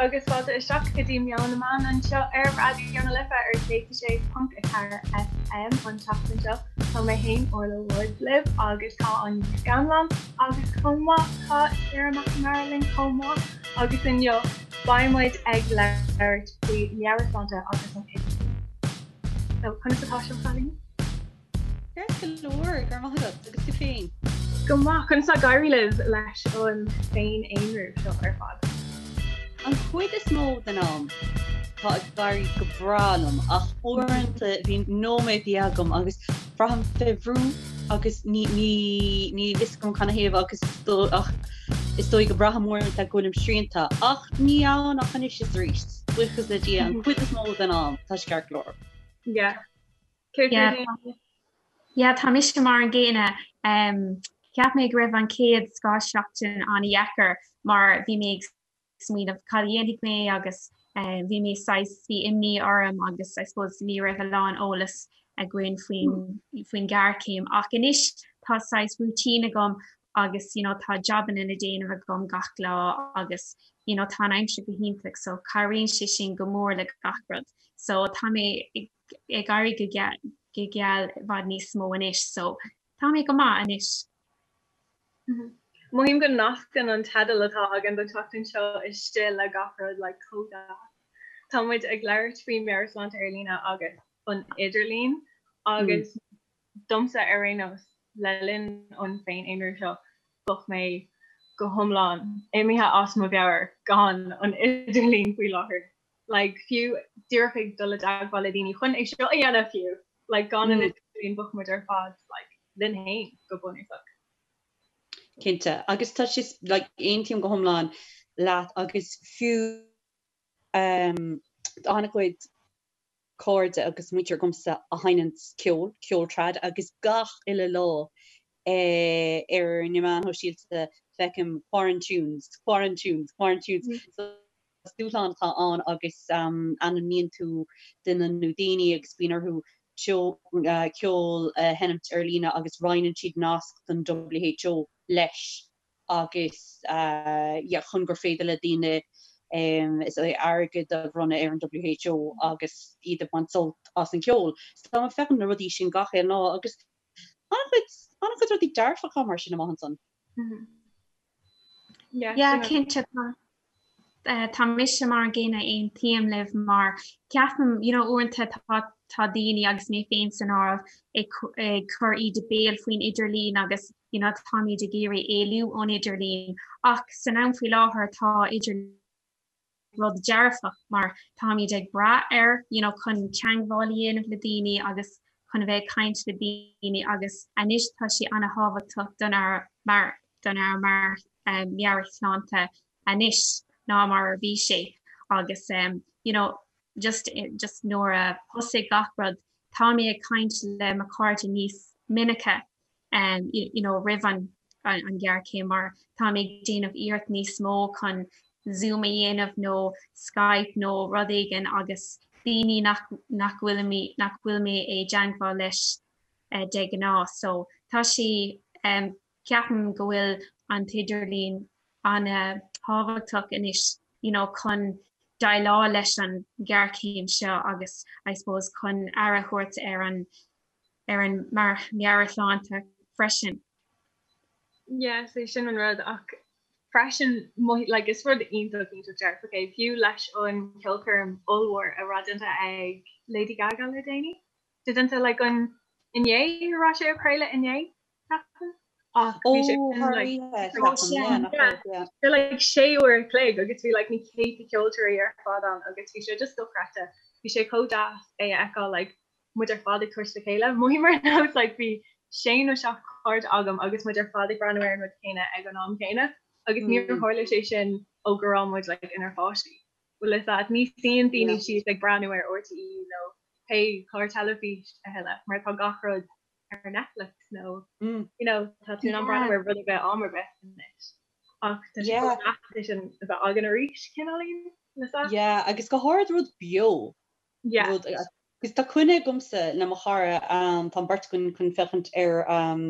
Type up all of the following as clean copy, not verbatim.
agus fáilte isteach go dtí Meon na Meán anseo ar Raidió na Life ar 106.4 FM an tseachtain seo. Tá mé féin Orla Woods libh agus tá Áine Ní Scanláin agus chomh maith tá Sarah McNamara linn chomh maith agus inniu beidh muid ag labhairt faoi meabhairshláinte agus an idirlíon. So conas atá sibh a chailíní? Ceart go leor, go raibh maith agat, agus tú féin? Go maith, conas tá ag éirí libh leis an féin-aonrú seo ar fad? An chuid is mó den am, tá ag éirí go breá liom, ach uaireanta bíonn nóiméadaí agam agus braithim fé bhrú agus ní, ní, níl fhios agam canathaobh agus is dóigh, ach is dóigh go mbraithim uaireanta go bhfuilim srianta, ach ní ann ach anois is arís, buíochas le Dia, an chuid is mó den am, tá sé ceart go leor. Yeah. Yeah, tá mise mar an gcéanna. Cheap mé go raibh an chéad scáth-seachtain an-dheacair mar bhí mé ag smaoineamh cad a dhéanfaidh mé agus bhí mé saghas, bhí imní orm agus I suppose ní raibh a lán eolas againn faoin faoin ghéarchéim ach anois tá saghas routine agam agus you know tá jabanna le déanamh agam gach lá agus you know tá an aimsir go hiontach so cabhraíonn sé sin go mór le gach rud. So tá mé ag ag éirí go geal i bhfad níos mó anois so tá mé go maith anois. Mothaím go nascann an teideal atá againn don tseachtain seo istigh le gach rud like chomh deas. Tá muid ag labhairt faoi meabhairshláinte ar líne agus an idirlíon agus domsa ar aon nós le linn an féin-aonrú seo bheadh mé go hiomlán imithe as mo mheabhair gan an idirlíon faoi láthair. like fiú díreach ag dul i dteagmháil le daoine chun é seo a dhéanamh fiú, like gan an idirlíon bheadh muid ar fad like linn féin go bunúsach. Cinnte, agus tá sé like aontaím go hiomlán leat agus fiú um tá an-chuid cairde agus muintir agamsa a sheinneann ceol, ceol trad agus gach uile lá eh ar na meáin shóisialta feicim quarantunes, quarantunes, quarantunes so Is dúshlán atá ann agus ainmníonn tú duine nó daoine agus bíonn orthu ceol a sheinmt ar líne agus roinneann siad nasc don WHO leis agus yeah chun gur féidir le daoine is é airgead a bhronnadh ar an WHO agus iad ag baint sult as an cheol. So tá mé ag féachaint na rudaí sin gach aon lá agus an-chuid an-chuid rudaí dearfacha mar sin amach ansan. Yeah, cinnte tá. Tá mise mar an gcéanna aontaím libh mar ceapaim you know uaireanta tá tá daoine agus mé féin san áireamh ag ag cur íde béil faoin idirlíon agus you know táimid ag iarraidh éalú ón idirlíon ach san am faoi láthair tá idir rud dearfach mar táimid ag brath air you know chun teagmháil a dhéanamh le daoine agus chun a bheith ag caint le daoine agus anois tá sé an-thábhachtach don ár mar don ár mar meabhairshláinte anois ná mar a bhí sé agus you know just just nuair a thosaigh gach rud tá mé ag caint le mo chairde níos minice um you know roimh an an ghéarchéim mar tá mé ag déanamh iarracht níos mó chun Zoom a dhéanamh nó Skype nó rud éigin agus daoine nach nach bhfuil mé nach bhfuil mé i dteagmháil leis uh, de ghnáth so tá sé um, Ceapaim go bhfuil an t-idirlíon an-thábhachtach anois you know chun déileáil leis an ghéarchéim seo agus I suppose chun aire a thabhairt ar an ar an meabhairshláinte freisin. Yeah, sé sin an rud ach freisin like is rud iontach iontach dearfach é fiú leis an ceolchoirm ollmhór a raibh déanta ag Lady Gaga le déanaí. Déanta like an inné a raibh sé á chraoladh inné? Ach bhí sé like sé uair a chloig agus bhí like na céadta ceoltóirí ar fad ann agus bhí sé just dochreidte. Bhí sé chomh deas é a fheiceáil like muid ar fad ag tabhairt le chéile. Mothaím ar nós like bhí sé nó seacht cairde agam agus muid ar fad ag breathnú ar an rud céanna ag an am céanna agus níor tharla sé sin ó go raibh muid like inár bpáistí. Bhfuil fhios agat, ní suíonn daoine síos ag breathnú ar RTÉ nó pé clár teilifís a thuilleadh mar tá gach rud ar Netflix nó you know tá tú in ann breathnú ar rud ar bith am ar bith anois. Ach tá sé chomh deas é sin a bheith againn arís cineáilín le sa. Yeah, agus go háirid rud beo. Yeah. Rud agus tá coinne agamsa le mo chara um, tá an beirt againn chun féachaint ar um,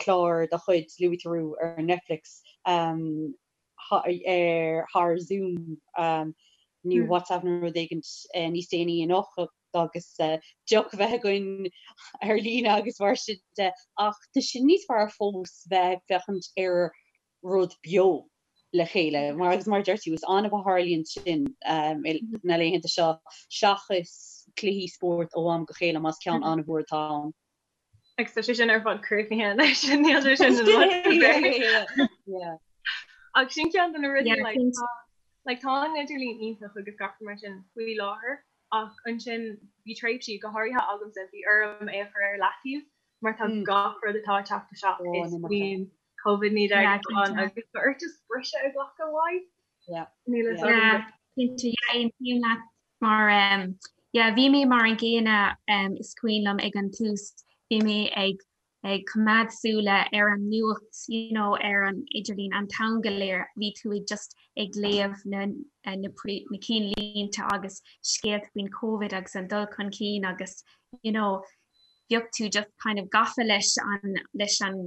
clár de chuid Louis Theroux ar Netflix um, ar thar Zoom nó WhatsApp nó rud éigin níos déanaí anocht agus deoch a bheith againn ar líne agus mar sin de ach tá sé níos fearr fós bheith ag féachaint ar rud beo le chéile mar agus mar a deir tú is annamh a tharlaíonn sin na laethanta seo seachas cluichí spóirt ó am go chéile más ceann an-mhór atá ann. Agus tá sé sin ar fad críochnaithe anois níl sé sin Ach sin ceann de na rudaí like, like, tá an idirlíon iontach agus gach mar sin faoi láthair ach ansin bhí tréimhsí go háirithe agamsa bhí orm é a chur ar leataobh mar tá mm. gach rud atá ag teacht isteach is faoin COVID-19 ann agus tá ort just briseadh a ghlacadh uaidh. Níl a fhios agam. Cinnte, yeah, aontaím leat mar um, yeah, bhí mé mar an gcéanna um, is cuimhin liom ag an tús bhí mé ag ag coimeád súile ar an nuacht you know, ar an idirlíon an t-am go léir bhí tú ag just ag léamh na, eh, na, na cinnlínte agus scéalta faoin COVID agus an dul chun cinn agus you know, bheadh tú just kind of gafa leis an leis an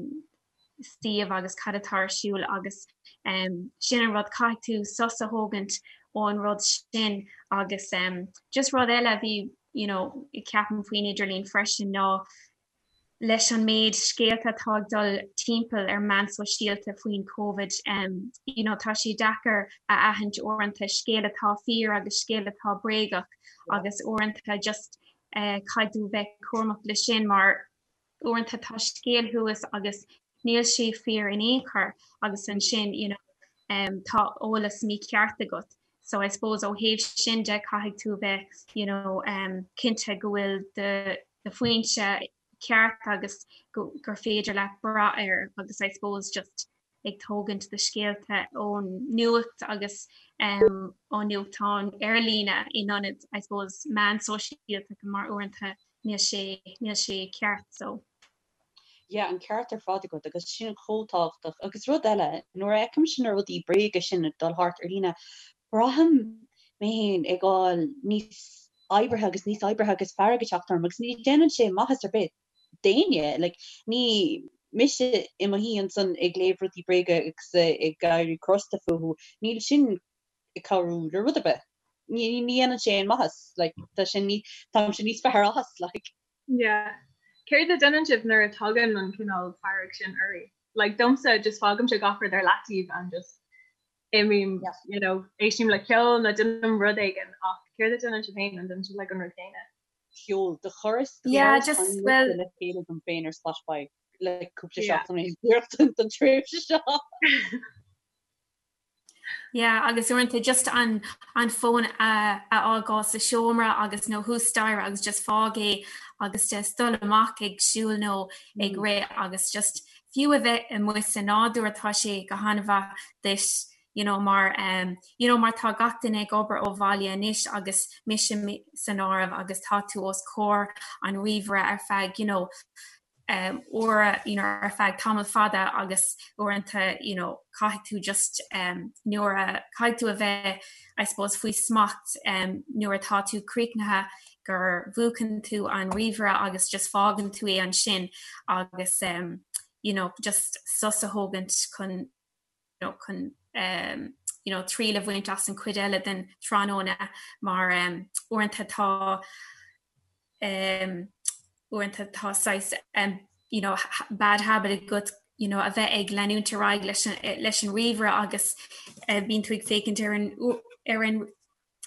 suíomh agus cad atá ar siúl agus sin an rud, caithfidh tú sos a thógaint ón rud sin agus just rud eile a bhí you know ceapaim faoin idirlíon freisin ná leis an méid scéalta atá ag dul timpeall ar meán sóisialta faoin Covid you know tá sé deacair a aithint uaireanta scéal atá fíor agus scéal atá bréagach agus uaireanta just eh, caithfidh tú bheith cúramach leis sin mar uaireanta tá scéal thuas agus níl sé fíor in aon chor agus ansin you know um, tá eolas mícheart agat. So I suppose ó thaobh sin de caithfidh tú bheith you know, um, cinnte go bhfuil do, do foinse ceart agus go, gur féidir leat brath air agus I suppose just ag tógaint do scéalta ón nuacht agus um, ó nuachtáin ar líne in ionad I suppose meán sóisialta mar uaireanta níl sé níl sé ceart so. Yeah, an ceart ar fad agat agus sin chomh tábhachtach. Agus rud eile, nuair a fheicimse na rudaí bréaga sin ag dul thart ar líne, braithim mé féin ag fáil níos oibrithe agus níos oibrithe agus fearg ag teacht orm agus ní déanann sé maitheas ar bith d'éinne. Like, ní mise i mo shuí ansan ag léamh rudaí bréaga agus ag éirí crosta fúthu, níl sin ag cabhrú le rud ar bith. Ní ní dhéanann sé aon maitheas, like, tá sé ní táimse níos fearr as, like. Yeah. Céard a déanann sibh nuair a tagann an cineál fearg sin oraibh? Like, domsa, just fágaimse gach rud ar leataobh and just imím, yeah. you know, éistim le ceol nó déanaim rud éigin ach céard a déanann sibh féin an déanann sibh like an rud céanna? Ceol do chuireas yeah, just well le chéile dom féin ar Spotify le cúpla seachtain yeah. don tréimhse seo. Yeah, agus uaireanta just an an fón a a fhágáil sa seomra agus nó thuas staighre agus just fág é agus just dul amach ag siúl nó ag mm. rith agus just fiú a bheith amuigh sa nádúr tá sé go han-mhaith duit you know mar um, you know mar tá gach duine ag obair ó bhaile anois agus mise san áireamh agus tá tú os comhair an ríomhaire ar feadh you know um, uair you know, ar feadh tamall fada agus uaireanta you know, caithfidh tú just um, nuair a caithfidh tú a bheith I suppose faoi smacht um, nuair atá tú críochnaithe gur mhúchann tú an ríomhaire agus just fágann tú é ansin agus um, you know, just sos a thógaint chun you know, chun um, you know, triail a bhaint as an chuid eile den tráthnóna mar um, uaireanta tá um, uaireanta tá saghas um, you know, bad habit agat you know, a bheith ag leanúint ar aghaidh leis an, leis an ríomhaire agus uh, bíonn tú ag féachaint ar an, ar an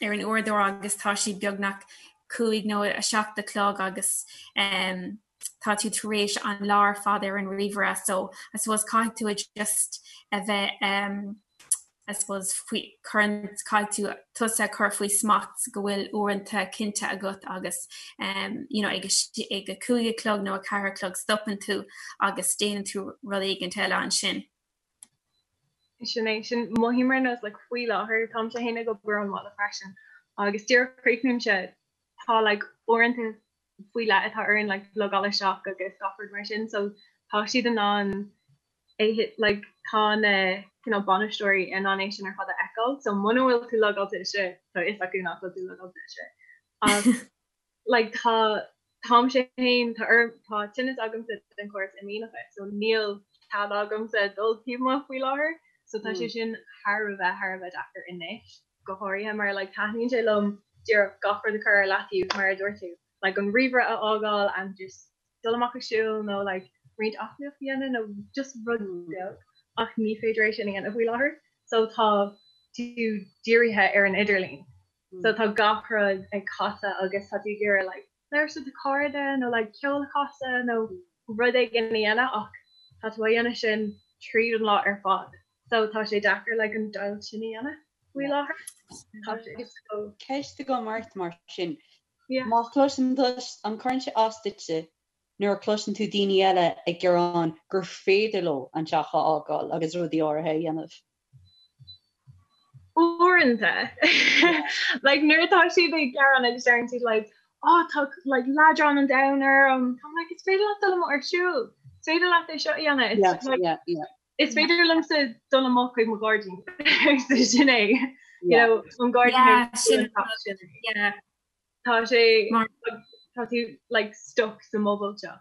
ar an uaireadóir agus tá sé beagnach 5 nó 7 a chlog agus um, tá tú tar éis an lá ar fad ar an ríomhaire so I suppose caithfidh tú just a bheith um, I suppose faoi cuireann caithfidh tú tusa a chur faoi smacht go bhfuil uaireanta cinnte agat agus um, you know, ag ag a 5 a chlog nó a 4 a chlog stopann tú agus déanann tú rud éigin eile ansin. Sin é sin mothaím ar nós like, faoi láthair táimse féin ag obair ón mbaile freisin agus díreach críochnaímse tá like, uaireanta faoi leith atá orainn like, logáil isteach agus gach rud mar sin so tá siad in ann é like tá na cineál bainisteoirí in ann é sin ar fad a fheiceáil so muna bhfuil tú logáilte isteach tá fhios acu nach bhfuil tú logáilte isteach ach like tá táimse féin tá orm tá tinneas agamsa den chóras imdhíonach so níl cead agamsa dul taobh amuigh faoi láthair. So tá sé sin thar a bheith thar a bheith deacair anois, go háirithe mar like taitníonn sé liom díreach gach rud a chur ar leataobh mar a dúirt tú, like an ríomhaire a fhágáil and just dul amach ag siúl nó like roinnt aclaíocht a dhéanamh nó just rud beag ach ní féidir é sin a dhéanamh faoi láthair. So tá tú dírithe ar an idirlíon. So tá gach rud ag casadh agus tá tú ag iarraidh like labhairt le do chairde nó like ceol a chasadh nó rud éigin a dhéanamh ach tá tú á dhéanamh sin tríd an lá ar fad. So tá sé deacair like an deighilt sin a dhéanamh faoi láthair. Tá sé so. Ceist agam ort mar sin. Yeah. Má chloiseann tú, an gcuireann sé as duitse nuair a chloiseann tú daoine eile ag gearán gur féidir leo an teach a fhágáil agus rudaí áirithe a dhéanamh? Uaireanta. Like nuair atá siad ag gearán agus deireann siad like oh tá like leadrán an domhain orm. Táim like is féidir leat dul amuigh ar siúl. Is féidir leat é seo a dhéanamh. It's Yeah, like yeah, yeah. is féidir liomsa dul amach chuig mo ghairdín. So sin é. You Yeah. know, an gairdín Yeah, é sin an teach sin é. yeah. Tá sé Mar tá tú like stuck sa mbubble seo.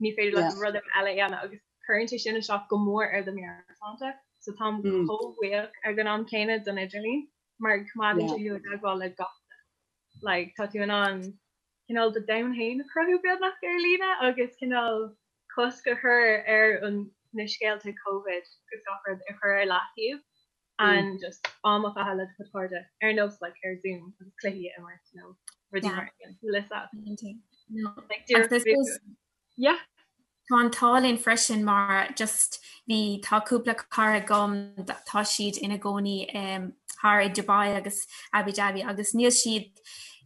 Ní féidir leat Yeah. rud ar bith eile a dhéanamh agus cuireann sé sin isteach go mór ar do mheabhairshláinte. So táim Mm. chomh buíoch ag an am céanna don idirlíon mar coimeádann Yeah. sé thú i dteagmháil le gach duine. Like tá tú in ann cineál do domhan féin a chruthú beagnach ar líne agus cineál cosc a chur ar an na scéalta Covid agus gach rud a chur ar leataobh and just am a chaitheamh le do chuid cairde ar nós like ar Zoom agus cluichí a imirt nó rudaí Yeah. mar sin. Lisa. No. Like Agus díreach I suppose Yeah. Tá an t-ádh linn freisin mar just bhí tá cúpla cara agam tá siad ina gcónaí um, thar i Dubai agus Abu Dhabi agus níl siad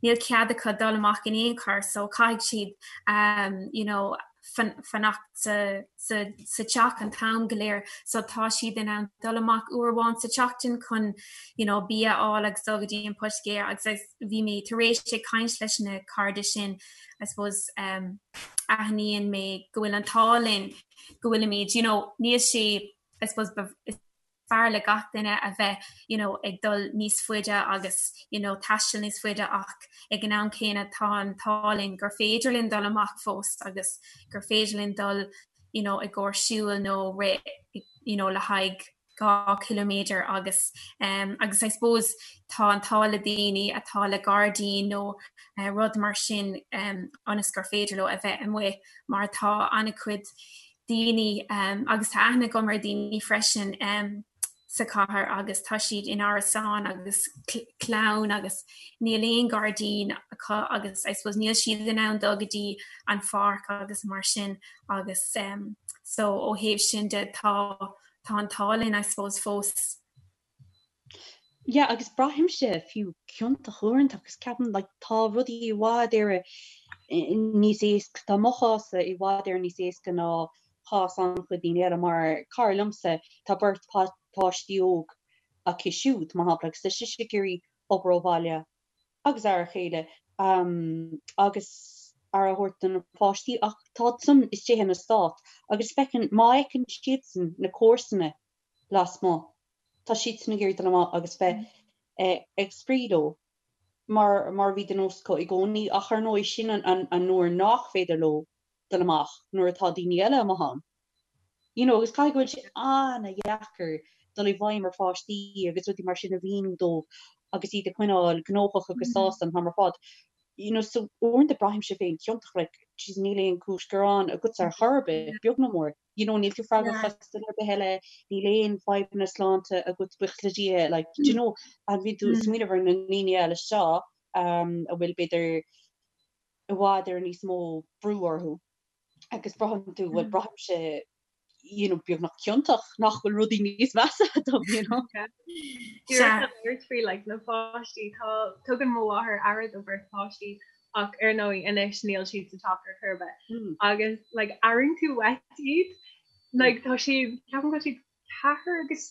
níl cead acu dul amach in aon chor so caithfidh siad um, you know, fanacht sa sa sa teach an t-am go léir so tá siad in ann dul amach uair amháin sa tseachtain chun you know, bia a fháil agus dul go dtí an poitigéir agus bhí mé tar éis ag caint leis na cairde sin I suppose um, aithníonn mé go bhfuil an t-ádh linn go bhfuilimid you know, níl sé I suppose is fearr le gach duine a bheith you know, ag dul níos faide agus you know, taisteal níos faide ach ag an am céanna tá an t-ádh linn gur féidir linn dul amach fós agus gur féidir linn dul you know, i gcomhair siúil nó rith you know, le haghaidh 2 chiliméadar agus um, agus I suppose tá an t-ádh le daoine atá le gairdín nó uh, rud mar sin um, ionas gur féidir leo a bheith amuigh mar tá an-chuid daoine um, agus tá aithne agam ar daoine freisin um, sa chathair agus tá siad in árasáin agus clann agus níl aon gairdín acu agus I suppose níl siad in ann dul go dtí an pháirc agus mar sin agus um, so ó thaobh sin de tá tá an t-ádh linn I suppose fós. Yeah agus braithimse fiú ciontach uaireanta agus ceapaim like tá rudaí i bhfad Éireann níos éasca, tá mo chás-sa i bhfad Éireann níos éasca ná cás an-chuid daoine eile mar cara liomsa tá beirt páistí óg aici siúd mar shampla agus tá sise ag iarraidh obair ó bhaile agus aire a chéile agus aire a thabhairt do na páistí ach tá san istigh ina stát agus feiceann má fheiceann siadsan na comharsana lasmuigh tá siadsan ag iarraidh dul amach agus bheith ag spraoi leo mar mar a bhí de nós acu i gcónaí ach ar ndóigh sin an an uair nach féidir leo dul amach nuair atá daoine eile amuigh ann. You know agus caithfidh go bhfuil sé an-dheacair dul i bhfeidhm ar pháistí agus rudaí mar sin a mhíniú dóibh agus iad a choinneáil gnóthach agus sásta an t-am ar fad. You know so uaireanta braithimse féin ciontach like jeez níl aon chúis gearáin agatsa ar chor ar bith, beag nó mór. You know níl tú freagrach as duine ar bith eile, níl aon fadhbanna sláinte agat buíochas le Dia like do you know and bíonn tú ag smaoineamh ar na ndaoine eile seo um a bhfuil b'fhéidir i bhfad ar níos mó brú orthu agus braitheann tú bhuel braithimse you know beagnach ciontach nach bhfuil rudaí níos measa dom you know. Díreach a labhairt faoi like na páistí tá tugann mo mháthair aire do bheirt páistí ach ar ndóigh anois níl siad sa teach ar chor ar bith. Agus like airíonn tú uait iad like tá siad ceapaim go bhfuil siad 4 agus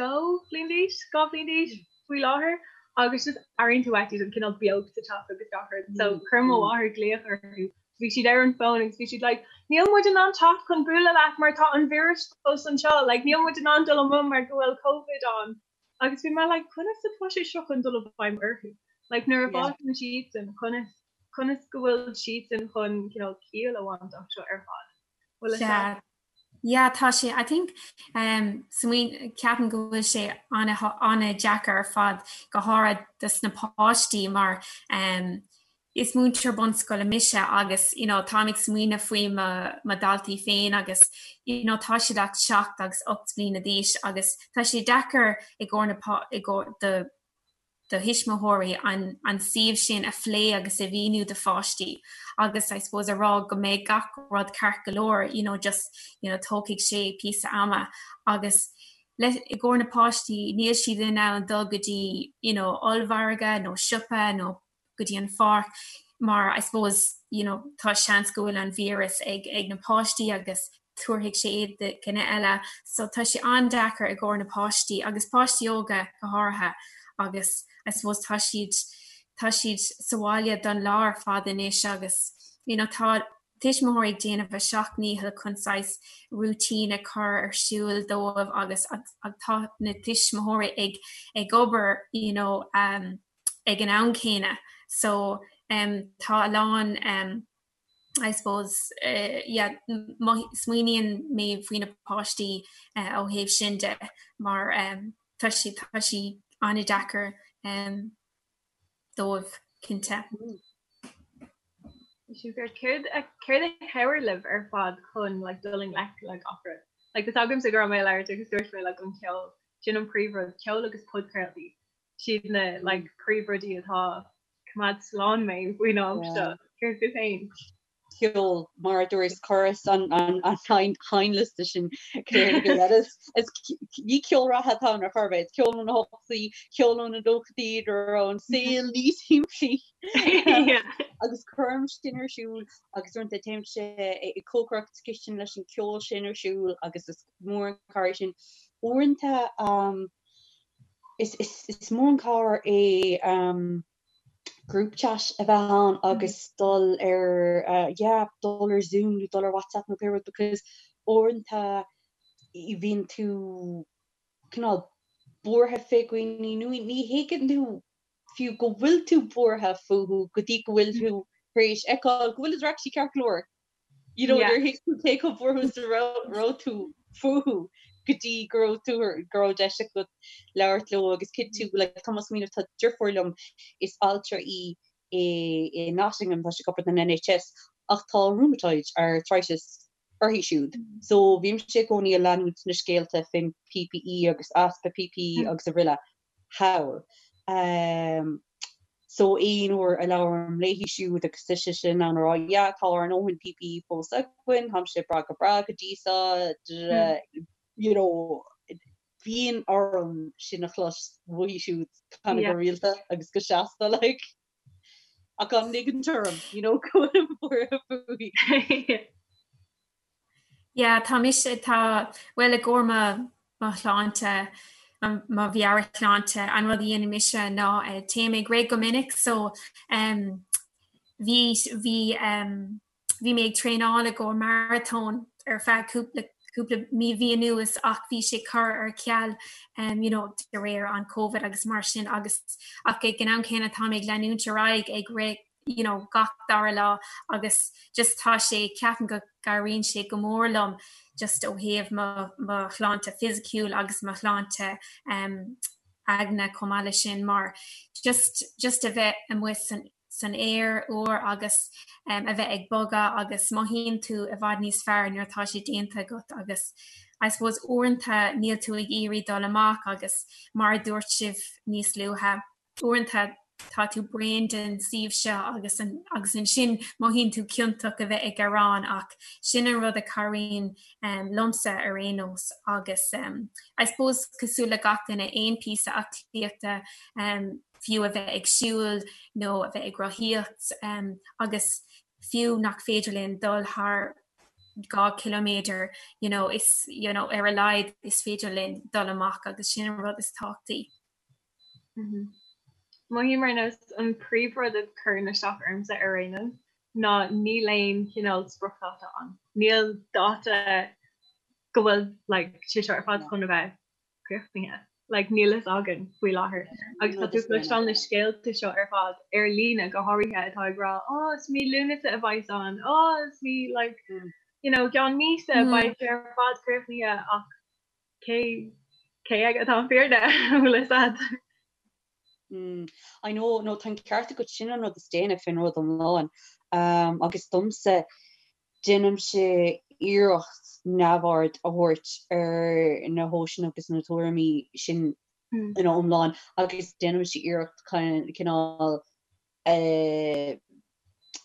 2 bhliain d'aois, 2 bhliain d'aois faoi láthair agus just airíonn tú uait iad an cineál beocht sa teach agus gach rud. So chuir mo mháthair glaoch orthu. Bhí siad ar an bhfón agus bhí siad like níl muid in ann teacht chun bualadh leat mar tá an víreas fós anseo, like níl muid in ann dul amuigh mar go bhfuil Covid ann. Agus bhí mé like conas atá sé seo chun dul i bhfeidhm orthu? Like nuair a fhásann siadsan conas conas go bhfuil siadsan chun cineál ciall a bhaint as seo ar fad? Bhfuil a fhios agat? Yeah, tá sé, I think, um, smaoin, ceapaim go bhfuil sé an-deacair ar fad, go háirithe dos na páistí mar um, is múinteoir bunscoile mise agus you know, táim ag smaoineamh faoi mo, mo dhaltaí féin agus you know, tá siad ach 7 agus 8 mbliana d'aois agus tá sé deacair i gcomhair na, i gcomhair do do thuismitheoirí an an suíomh sin a phlé agus a mhíniú do pháistí agus I suppose a rá go mbeidh gach rud ceart go leor you know just you know tógfaidh sé píosa ama agus le i gcomhair na páistí níl siad in ann dul go dtí you know ollmhargadh nó siopa nó go dtí an pháirc mar I suppose you know tá seans go bhfuil an víreas ag ag na páistí agus tabharfaidh sé é do dhuine eile. So tá sé an-deacair i gcomhair na páistí agus páistí óga go háirithe agus I suppose tá siad tá siad sa bhaile don lá ar fad anois agus you know tá tuismitheoirí ag déanamh a seacht ndícheall chun saghas routine a chur ar siúl dóibh agus tá na tuismitheoirí ag ag obair you know um, ag an am céanna so um, tá a lán um, I suppose yeah smaoiníonn mé faoi na páistí ó thaobh sin de mar tá sé tá sé an-deacair dóibh cinnte. Céard a céard a chabhraigh libh ar fad chun like dul i ngleic le gach rud? Like tá a fhios agamsa go raibh mé ag labhairt agus dúirt mé like an ceol sin an príomhrud, ceol agus podchraoltaí. Siad na like príomhrudaí atá coimeád slán mé faoin am seo. Céard fút féin? Ceol, mar a dúirt chuireas an seinnliosta sin Is ní ceol reatha atá ann ar chor ar bith, is ceol ó na hochtóidí, ceol ó na nóchaidí nuair a raibh an saol níos simplí. Agus cuirim sin ar siúl agus uaireanta téimse ag cócaireacht sa chistin leis an ceol sin ar siúl agus is mór an cabhair sin. Uaireanta Is mór an cabhair é group chat a bheith ann agus dul ar yeah dul ar Zoom nó dul ar WhatsApp nó pé rud because uaireanta bíonn tú cineál buartha fé dhaoine nó ní thuigeann tú fiú go bhfuil tú buartha fúthu go dtí go bhfuil tú tar éis fheiceáil go bhfuil siad actually ceart go leor. You know, níor thuig tú cé chomh buartha is a raibh tú fúthu go dtí go raibh tú go raibh deis agat labhairt leo agus cinntiú like tá mé ag smaoineamh tá deirfiúr liom is altra í i i Nottingham tá sí ag obair don NHS ach tá rheumatoid arthritis uirthi siúd so bímse i gcónaí ag leanúint na scéalta fén PPE agus easpa PPE agus araile thall. So aon uair a labhraím léi siúd agus tá sise in ann a rá yeah tá ár ndóthain PPE fós againn, táimse breá go breá go dtí seo, you know, bíonn orm sin a chlos uaithi siúd kind of go rialta agus go seasta like. Ach gan ligint orm, you know, go bhfuilim buartha fúithi. Yeah, tá mise, tá, bhuel i gcomhair mo, mo shláinte, mo mheabhairshláinte, an rud a dhéanann mise ná téim ag rith go minic so um, bhí, bhí um, bhí mé ag traenáil i gcomhair maratón ar feadh cúpla cúpla mí mhí anuas ach bhí sé curtha ar ceal um, you know, de réir an Covid agus mar sin agus ach ag an am céanna tá mé ag leanúint ar aghaidh ag rith you know, gach dara lá agus just tá sé, ceapaim go gcabhraíonn sé go mór liom just ó thaobh mo, mo shláinte fisiciúil agus mo shláinte um, aigne chomh maith leis sin mar just, just a bheith amuigh san, san aer úr agus um, a bheith ag bogadh agus mothaíonn tú i bhfad níos fearr nuair atá sé déanta agat agus I suppose uaireanta níl tú ag iarraidh dul amach agus mar a dúirt sibh níos luaithe uaireanta tá tú bréan den suíomh seo agus agus ansin mothaíonn tú ciontach a bheith ag gearán ach sin an rud a chabhraíonn um, liomsa ar aon nós agus um, I suppose cosúil le gach duine aon píosa aclaíochta um, fiú a bheith ag siúl nó a bheith ag rothaíocht um, agus fiú nach féidir linn dul thar 2 ciliméadar you know, is you know, ar a laghad is féidir linn dul amach agus sin an rud is tábhachtaí. Mothaím ar nós an príomhrud a chuireann isteach ormsa ar aon nós ná níl aon chineál spriocdháta ann. Níl dáta go bhfuil like sé seo ar fad chun a bheith críochnaithe. Like níl fhios againn faoi láthair. Agus tá tú ag cloisteáil na scéalta seo ar fad ar líne go háirithe atá ag rá oh is mí Lúnasa a bheas ann, oh is mí like mm. you know, gceann míosa beidh sé ar fad críochnaithe ach cé cé aige atá an fírinne bhfuil fhios a'd. Mm, I know, no, tá an ceart agat sin an rud is déine faoin rud iomlán. Um, agus domsa déanaimse iarracht neamhaird a thabhairt ar na heolais agus na tuairimí sin mm. ina iomlán agus déanaimse iarracht cineál eh,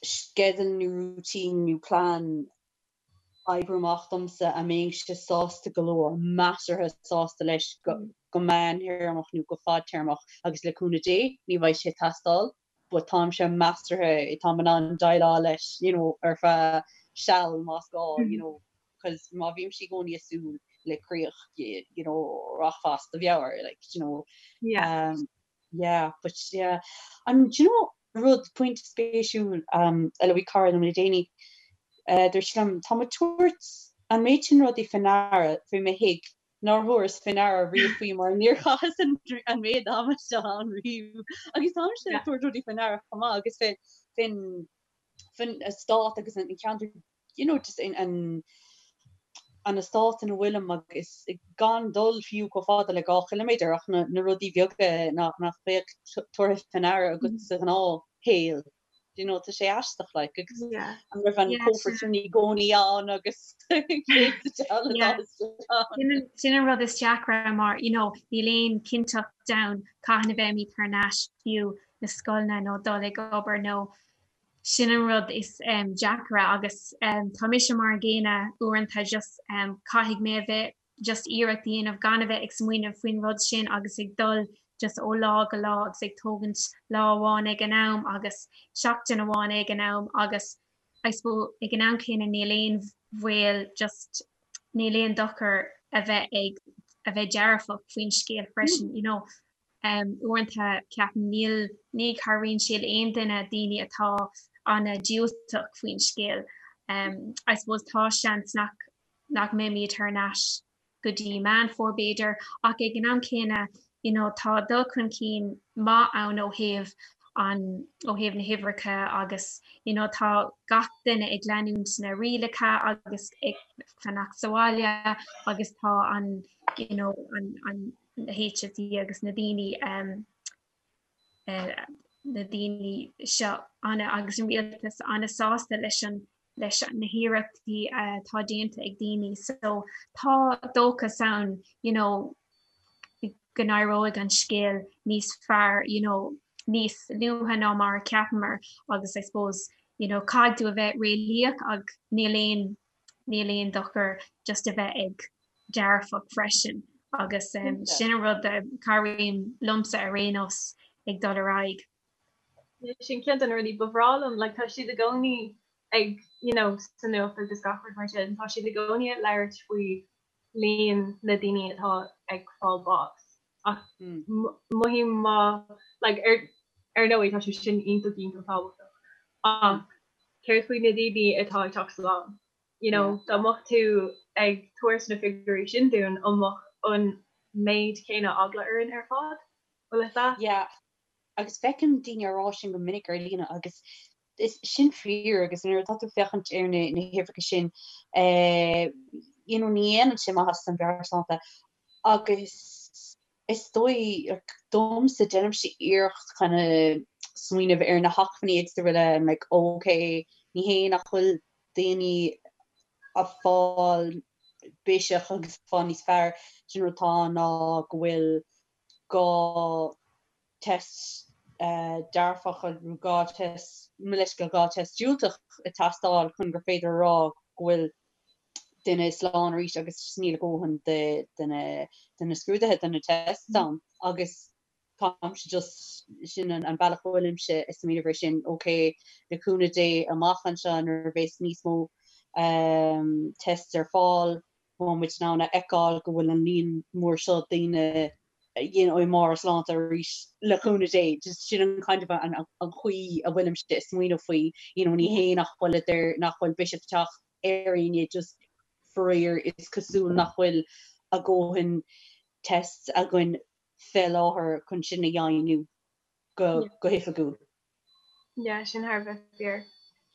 sceideal nó routine nó plean a oibriú amach domsa a mbeinnse sásta go leor, measartha sásta leis go meántéarmach nó go fadtéarmach agus le cúnamh Dé ní bheidh sé ag teastáil but táimse measartha, táim in ann déileáil leis you know ar feadh seal más gá you know cos má bhímse i gcónaí ag súil le críoch you know rachfá as do mheabhair like you know. Yeah. Um, Yeah, but yeah. And do you know rud pointe spéisiúil um, a luaigh cara liom le déanaí, uh, dúirt sí liom, tá mé ag tabhairt an méid sin rudaí faoi ndeara faoi mo thigh nár thabhaireas faoi ndeara riamh faoi mar níor chaitheas an, an méid ama seo ann riamh. Agus táimse ag tabhairt rudaí faoi ndeara chomh maith agus faoin faoin faoin eastát agus an ceantar you know, just in an an eastát ina bhfuilim agus gan dul fiú chomh fada le 2 chiliméadar ach na, na rudaí beaga nach, nach mbeadh tabhartha faoi ndeara agat sa ghnáthshaol. You know, tá sé aisteach like, agus yeah. an raibh an Yeah, cófra sin sin i gcónaí ann agus Yeah. Sin an rud is deacra mar you know, níl aon cinnteacht ann cathain a bheimid thar n-ais fiú na scoileanna nó dul ag obair nó Sin an rud is deacra agus tá mise mar an gcéanna uaireanta just caithfidh mé a bheith just iarracht a dhéanamh gan a bheith ag smaoineamh faoin rud sin agus ag dul just ó lá go lá agus ag tógaint lá amháin ag an am agus seachtain amháin ag an am agus I suppose ag an am céanna níl aon bhaol just níl aon dochar a bheith ag a bheith dearfach faoin scéal freisin you know. Uaireanta ceapaim níl, ní chabhraíonn sé le aon duine, daoine atá an-diúltach faoin scéal. I suppose tá seans nach, nach mbeimid thar n-ais go dtí Meán Fómhair b'fhéidir ach ag an am céanna you know tá dul chun cinn maith ann ó thaobh an, ó thaobh na huimhreacha agus you know tá gach duine ag leanúint na rialacha agus ag fanacht sa bhaile agus tá an you know an, an na HSE agus na daoine na daoine seo ana agus an rialtas ana-sásta leis an leis na hiarrachtaí atá déanta ag daoine so tá dóchas ann you know go n-éireoidh an scéal níos fearr you know níos luaithe ná mar a cheapamar agus I suppose you know caithfidh tú a bheith réalaíoch ach níl aon níl aon dochar just a bheith ag dearfach freisin agus sin an rud a chabhraíonn liomsa ar aon nós ag dul ar aghaidh. Sin ceann de na rudaí ba bhreá liom, like tá siad i gcónaí ag you know sa nuacht agus gach rud mar sin, tá siad i gcónaí ag labhairt faoi líon na daoine atá ag fáil bás ach mothaím má like ar ar ndóigh tá sé sin iontach iontach tábhachtach ach céard faoi na daoine atá ag teacht slán? You know, dá mbeadh tú ag tabhairt na figiúirí sin dúinn, an mbeadh an méid céanna eagla orainn ar fad? Bhfuil fhios a'd? Yeah, agus feicim daoine á rá sin go minic ar líne agus is sin fíor agus nuair atá tú ag féachaint ar na na huimhreacha sin eh, you know, ní dhéanann sé maitheas don mheabhairshláinte agus is dóigh domsa déanaimse iarracht kind of smaoineamh ar na hacmhainní agus araile I'm like ok ní hé nach bhfuil daoine ag fáil biseach agus fáil níos fearr sin rud atá ann ná go bhfuil gá test dearfach nó gá test mo leithscéal gá test diúltach ag teastáil chun gur féidir a rá go bhfuil duine slán arís agus níl a dhóthain de na scrúduithe, de na tests ann agus táimse just, sin an bealach a bhfuilimse ag smaoineamh air sin, ok, le cúnamh Dé amach anseo nuair a bheas níos mó tests ar fáil, beidh muid in ann a fheiceáil go bhfuil an líon mór seo daoine you know, i mbarr a sláinte arís le cúnamh Dé, just sin an kind of an chaoi a bhfuilimse ag smaoineamh faoi, you know, ní hé nach bhfuil nach bhfuil biseach ag teacht ar éinne just faraor is cosúil nach bhfuil a dhóthain tests againn fé láthair chun sin a dheimhniú go go hoifigiúil. Yeah, sin thar a bheith fíor.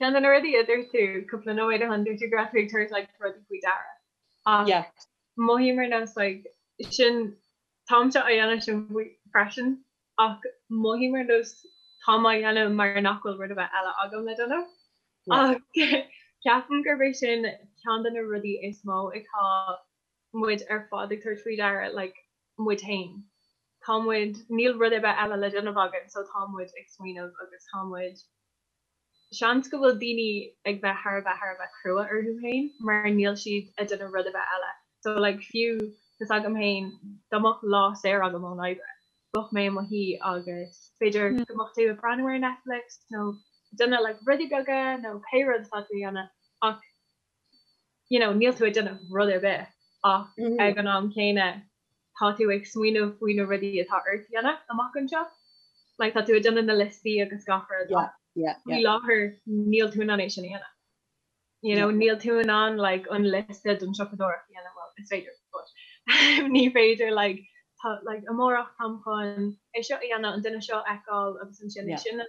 Ceann de na rudaí a dúirt tú cúpla nóiméad ó shin, dúirt tú go raibh tú ag tabhairt like rudaí faoi deara. Ach Yeah. mothaím ar nós like sin táimse á dhéanamh sin freisin ach mothaím ar nós táim á dhéanamh mar nach bhfuil rud ar bith eile agam le déanamh. Ach ceapaim gurb é sin ceann de na rudaí is mó atá muid ar fad ag tabhairt faoi deara like muid féin. Tá muid, níl rud ar bith eile le déanamh againn so tá muid ag smaoineamh agus tá muid, seans go bhfuil daoine ag bheith thar a bheith thar a bheith crua orthu féin mar níl siad ag déanamh rud ar bith eile. So like fiú tá 's agam féin dá mbeadh lá saor agam ón oibre, bheadh mé i mo shuí agus b'fhéidir go mbeadh tú ag breathnú ar Netflix nó ag déanamh like rudaí beaga nó pé rud atá tú a dhéanamh ach you know níl tú ag déanamh rud ar bith ach ag an am céanna tá tú ag smaoineamh faoi na rudaí atá ort a dhéanamh amach anseo. Like tá tú ag déanamh na liostaí agus gach rud Yeah, yeah, faoi yeah. láthair níl tú in ann é sin a dhéanamh. You know, Yeah. níl tú in ann like an liosta don siopadóireacht a dhéanamh, well is féidir but ní féidir like tá like amárach táim chun é seo a dhéanamh, an duine seo a fheiceáil agus ansin é Yeah. sin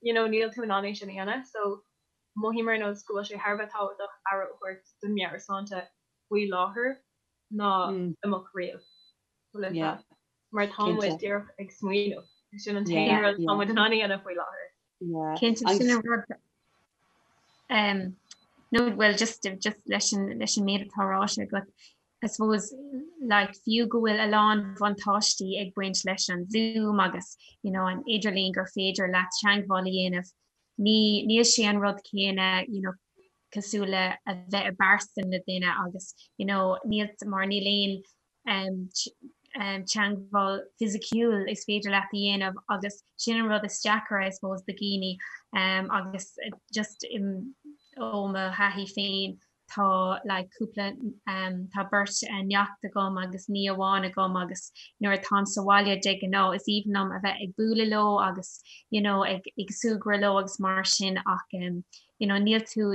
you know níl tú in ann é sin a dhéanamh so mothaím ar nós go bhfuil sé thar a bheith tábhachtach aire a thabhairt don meabhairshláinte faoi láthair ná amach riamh. Bhfuil a fhios Yeah. agat? Mar tá muid Cinnte. díreach ag smaoineamh. Sin an t-aon Yeah, rud atá yeah. muid in ann a dhéanamh faoi láthair. Yeah. Cinnte Agus sin an rud um, no well just just leis an leis an méid atá ráite agat I suppose like fiú go bhfuil a lán bhuntáistí ag baint leis an Zoom agus you know an idirlíon gur féidir leat teagmháil a dhéanamh ní níl sé an rud céanna you know cosúil le a bheith i bpearsan le duine agus you know níl mar níl aon um, um, teagmháil fisiciúil is féidir leat a dhéanamh agus sin an rud is deacra I suppose do dhaoine um, agus just um, ó mo thaithí féin tá like cúpla um, tá beirt neacht agam agus nia amháin agam agus nuair atáim sa bhaile de ghnáth is aoibhinn liom a bheith ag bualadh leo agus you know ag ag súgradh leo agus mar sin ach um, you know níl tú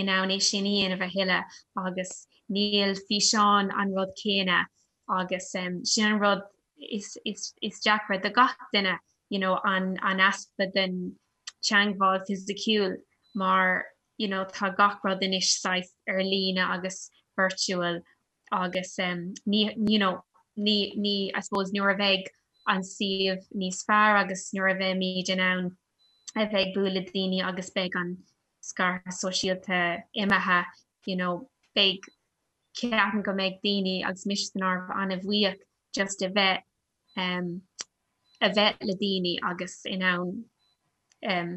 in ann é sin a dhéanamh a thuilleadh agus níl físeán an rud céanna agus um, sin an rud is, is, is deacra do gach duine you know an, an easpa den teagmháil fisiciúil mar you know tá gach rud anois saghas ar líne agus virtual agus um, ní you know ní ní I suppose nuair a bheidh an suíomh níos fearr agus nuair a bheimid in ann a bheith ag bualadh daoine agus beidh an scaradh sóisialta imithe you know beidh ceapaim go mbeidh daoine agus mise san áireamh an-bhuíoch just a bheith um, a bheith le daoine agus in ann um,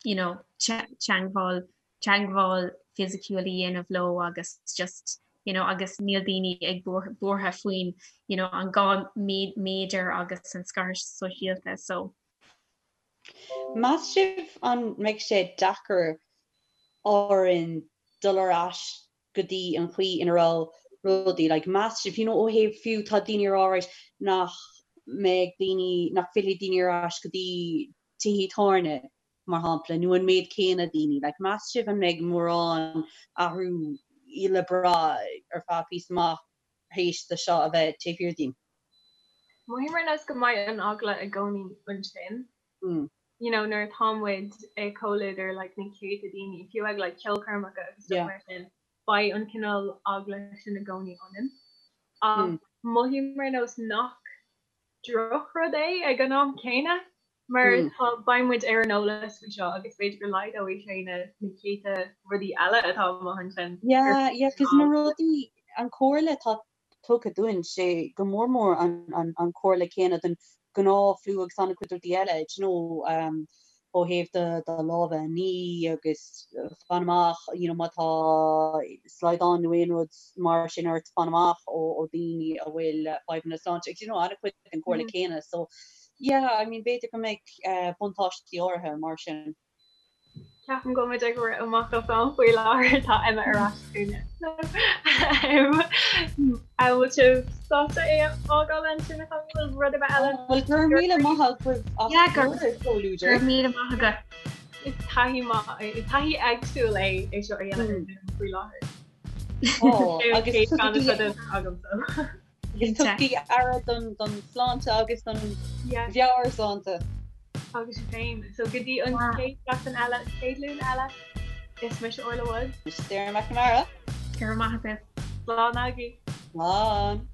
you know, teagmháil teagmháil fisiciúil a dhéanamh leo agus just you know, agus níl daoine ag buartha faoin you know, an 2 méadar agus an scaradh sóisialta so. Meas sibh an mbeidh sé deacair orainn dul ar ais go dtí an chaoi ina raibh rudaí, like, meas sibh, you know, ó thaobh fiú tá daoine ag rá right nach mbeidh daoine, nach bhfillfidh daoine ar ais go dtí tithe tábhairne, mar shampla, nó an méid céanna daoine, like, meas sibh an mbeidh mórán athrú le brath ar feadh píosa amach théis do seo a bheith taobh thiar dínn? Mothaím ar nós go mbeidh an eagla i gcónaí ansin. You know, nuair atá muid i comhluadar like na céadta daoine, fiú ag like ceolchoirmeacha agus stuff mar sin, beidh an cineál eagla sin i gcónaí ionainn. Ach mothaím ar nós nach drochrud é ag an am céanna mar tá beidh muid ar an eolas faoi seo agus b'fhéidir go laghdóidh sé na na céadta rudaí eile atá amuigh ansin. Yeah, yeah, 'cause na rudaí, an chomhairle atá tugtha dúinn, sé go mór mór an an chomhairle céanna don ghnáth-fhliú agus an-chuid rudaí eile, do you know, ó thaobh do do lámha a ní agus fan amach, you know, má tá slaghdán nó aon rud mar sin ort, fan amach ó ó daoine a bhfuil fadhbanna sláinte agus, you know, an-chuid den chomhairle céanna. So, yeah, I mean, b'fhéidir go mbeidh buntáistí áirithe mar sin. Ceapaim go bhfuil muid ag rith amach as am faoi láthair tá Emma ar ais chugainne. An bhfuil sibh sásta é a fhágáil ansin an bhfuil rud ar bith eile? Bhuel go raibh míle maith agaibh as bhur gcomhluadar. Go raibh míle maith agat. Is taithí maith is taithí éagsúil é é seo a dhéanamh ar Zoom faoi láthair. Ó agus tugaigí agus tugaigí aire don don sláinte agus don mheabhairshláinte. Agus sibh féin. So go dtí an chéad seachtain eile, chéad Luan eile, is mise Orla Woods. Mise Sarah McNamara. Go raibh maith agaibh. Slán agaibh. Slán.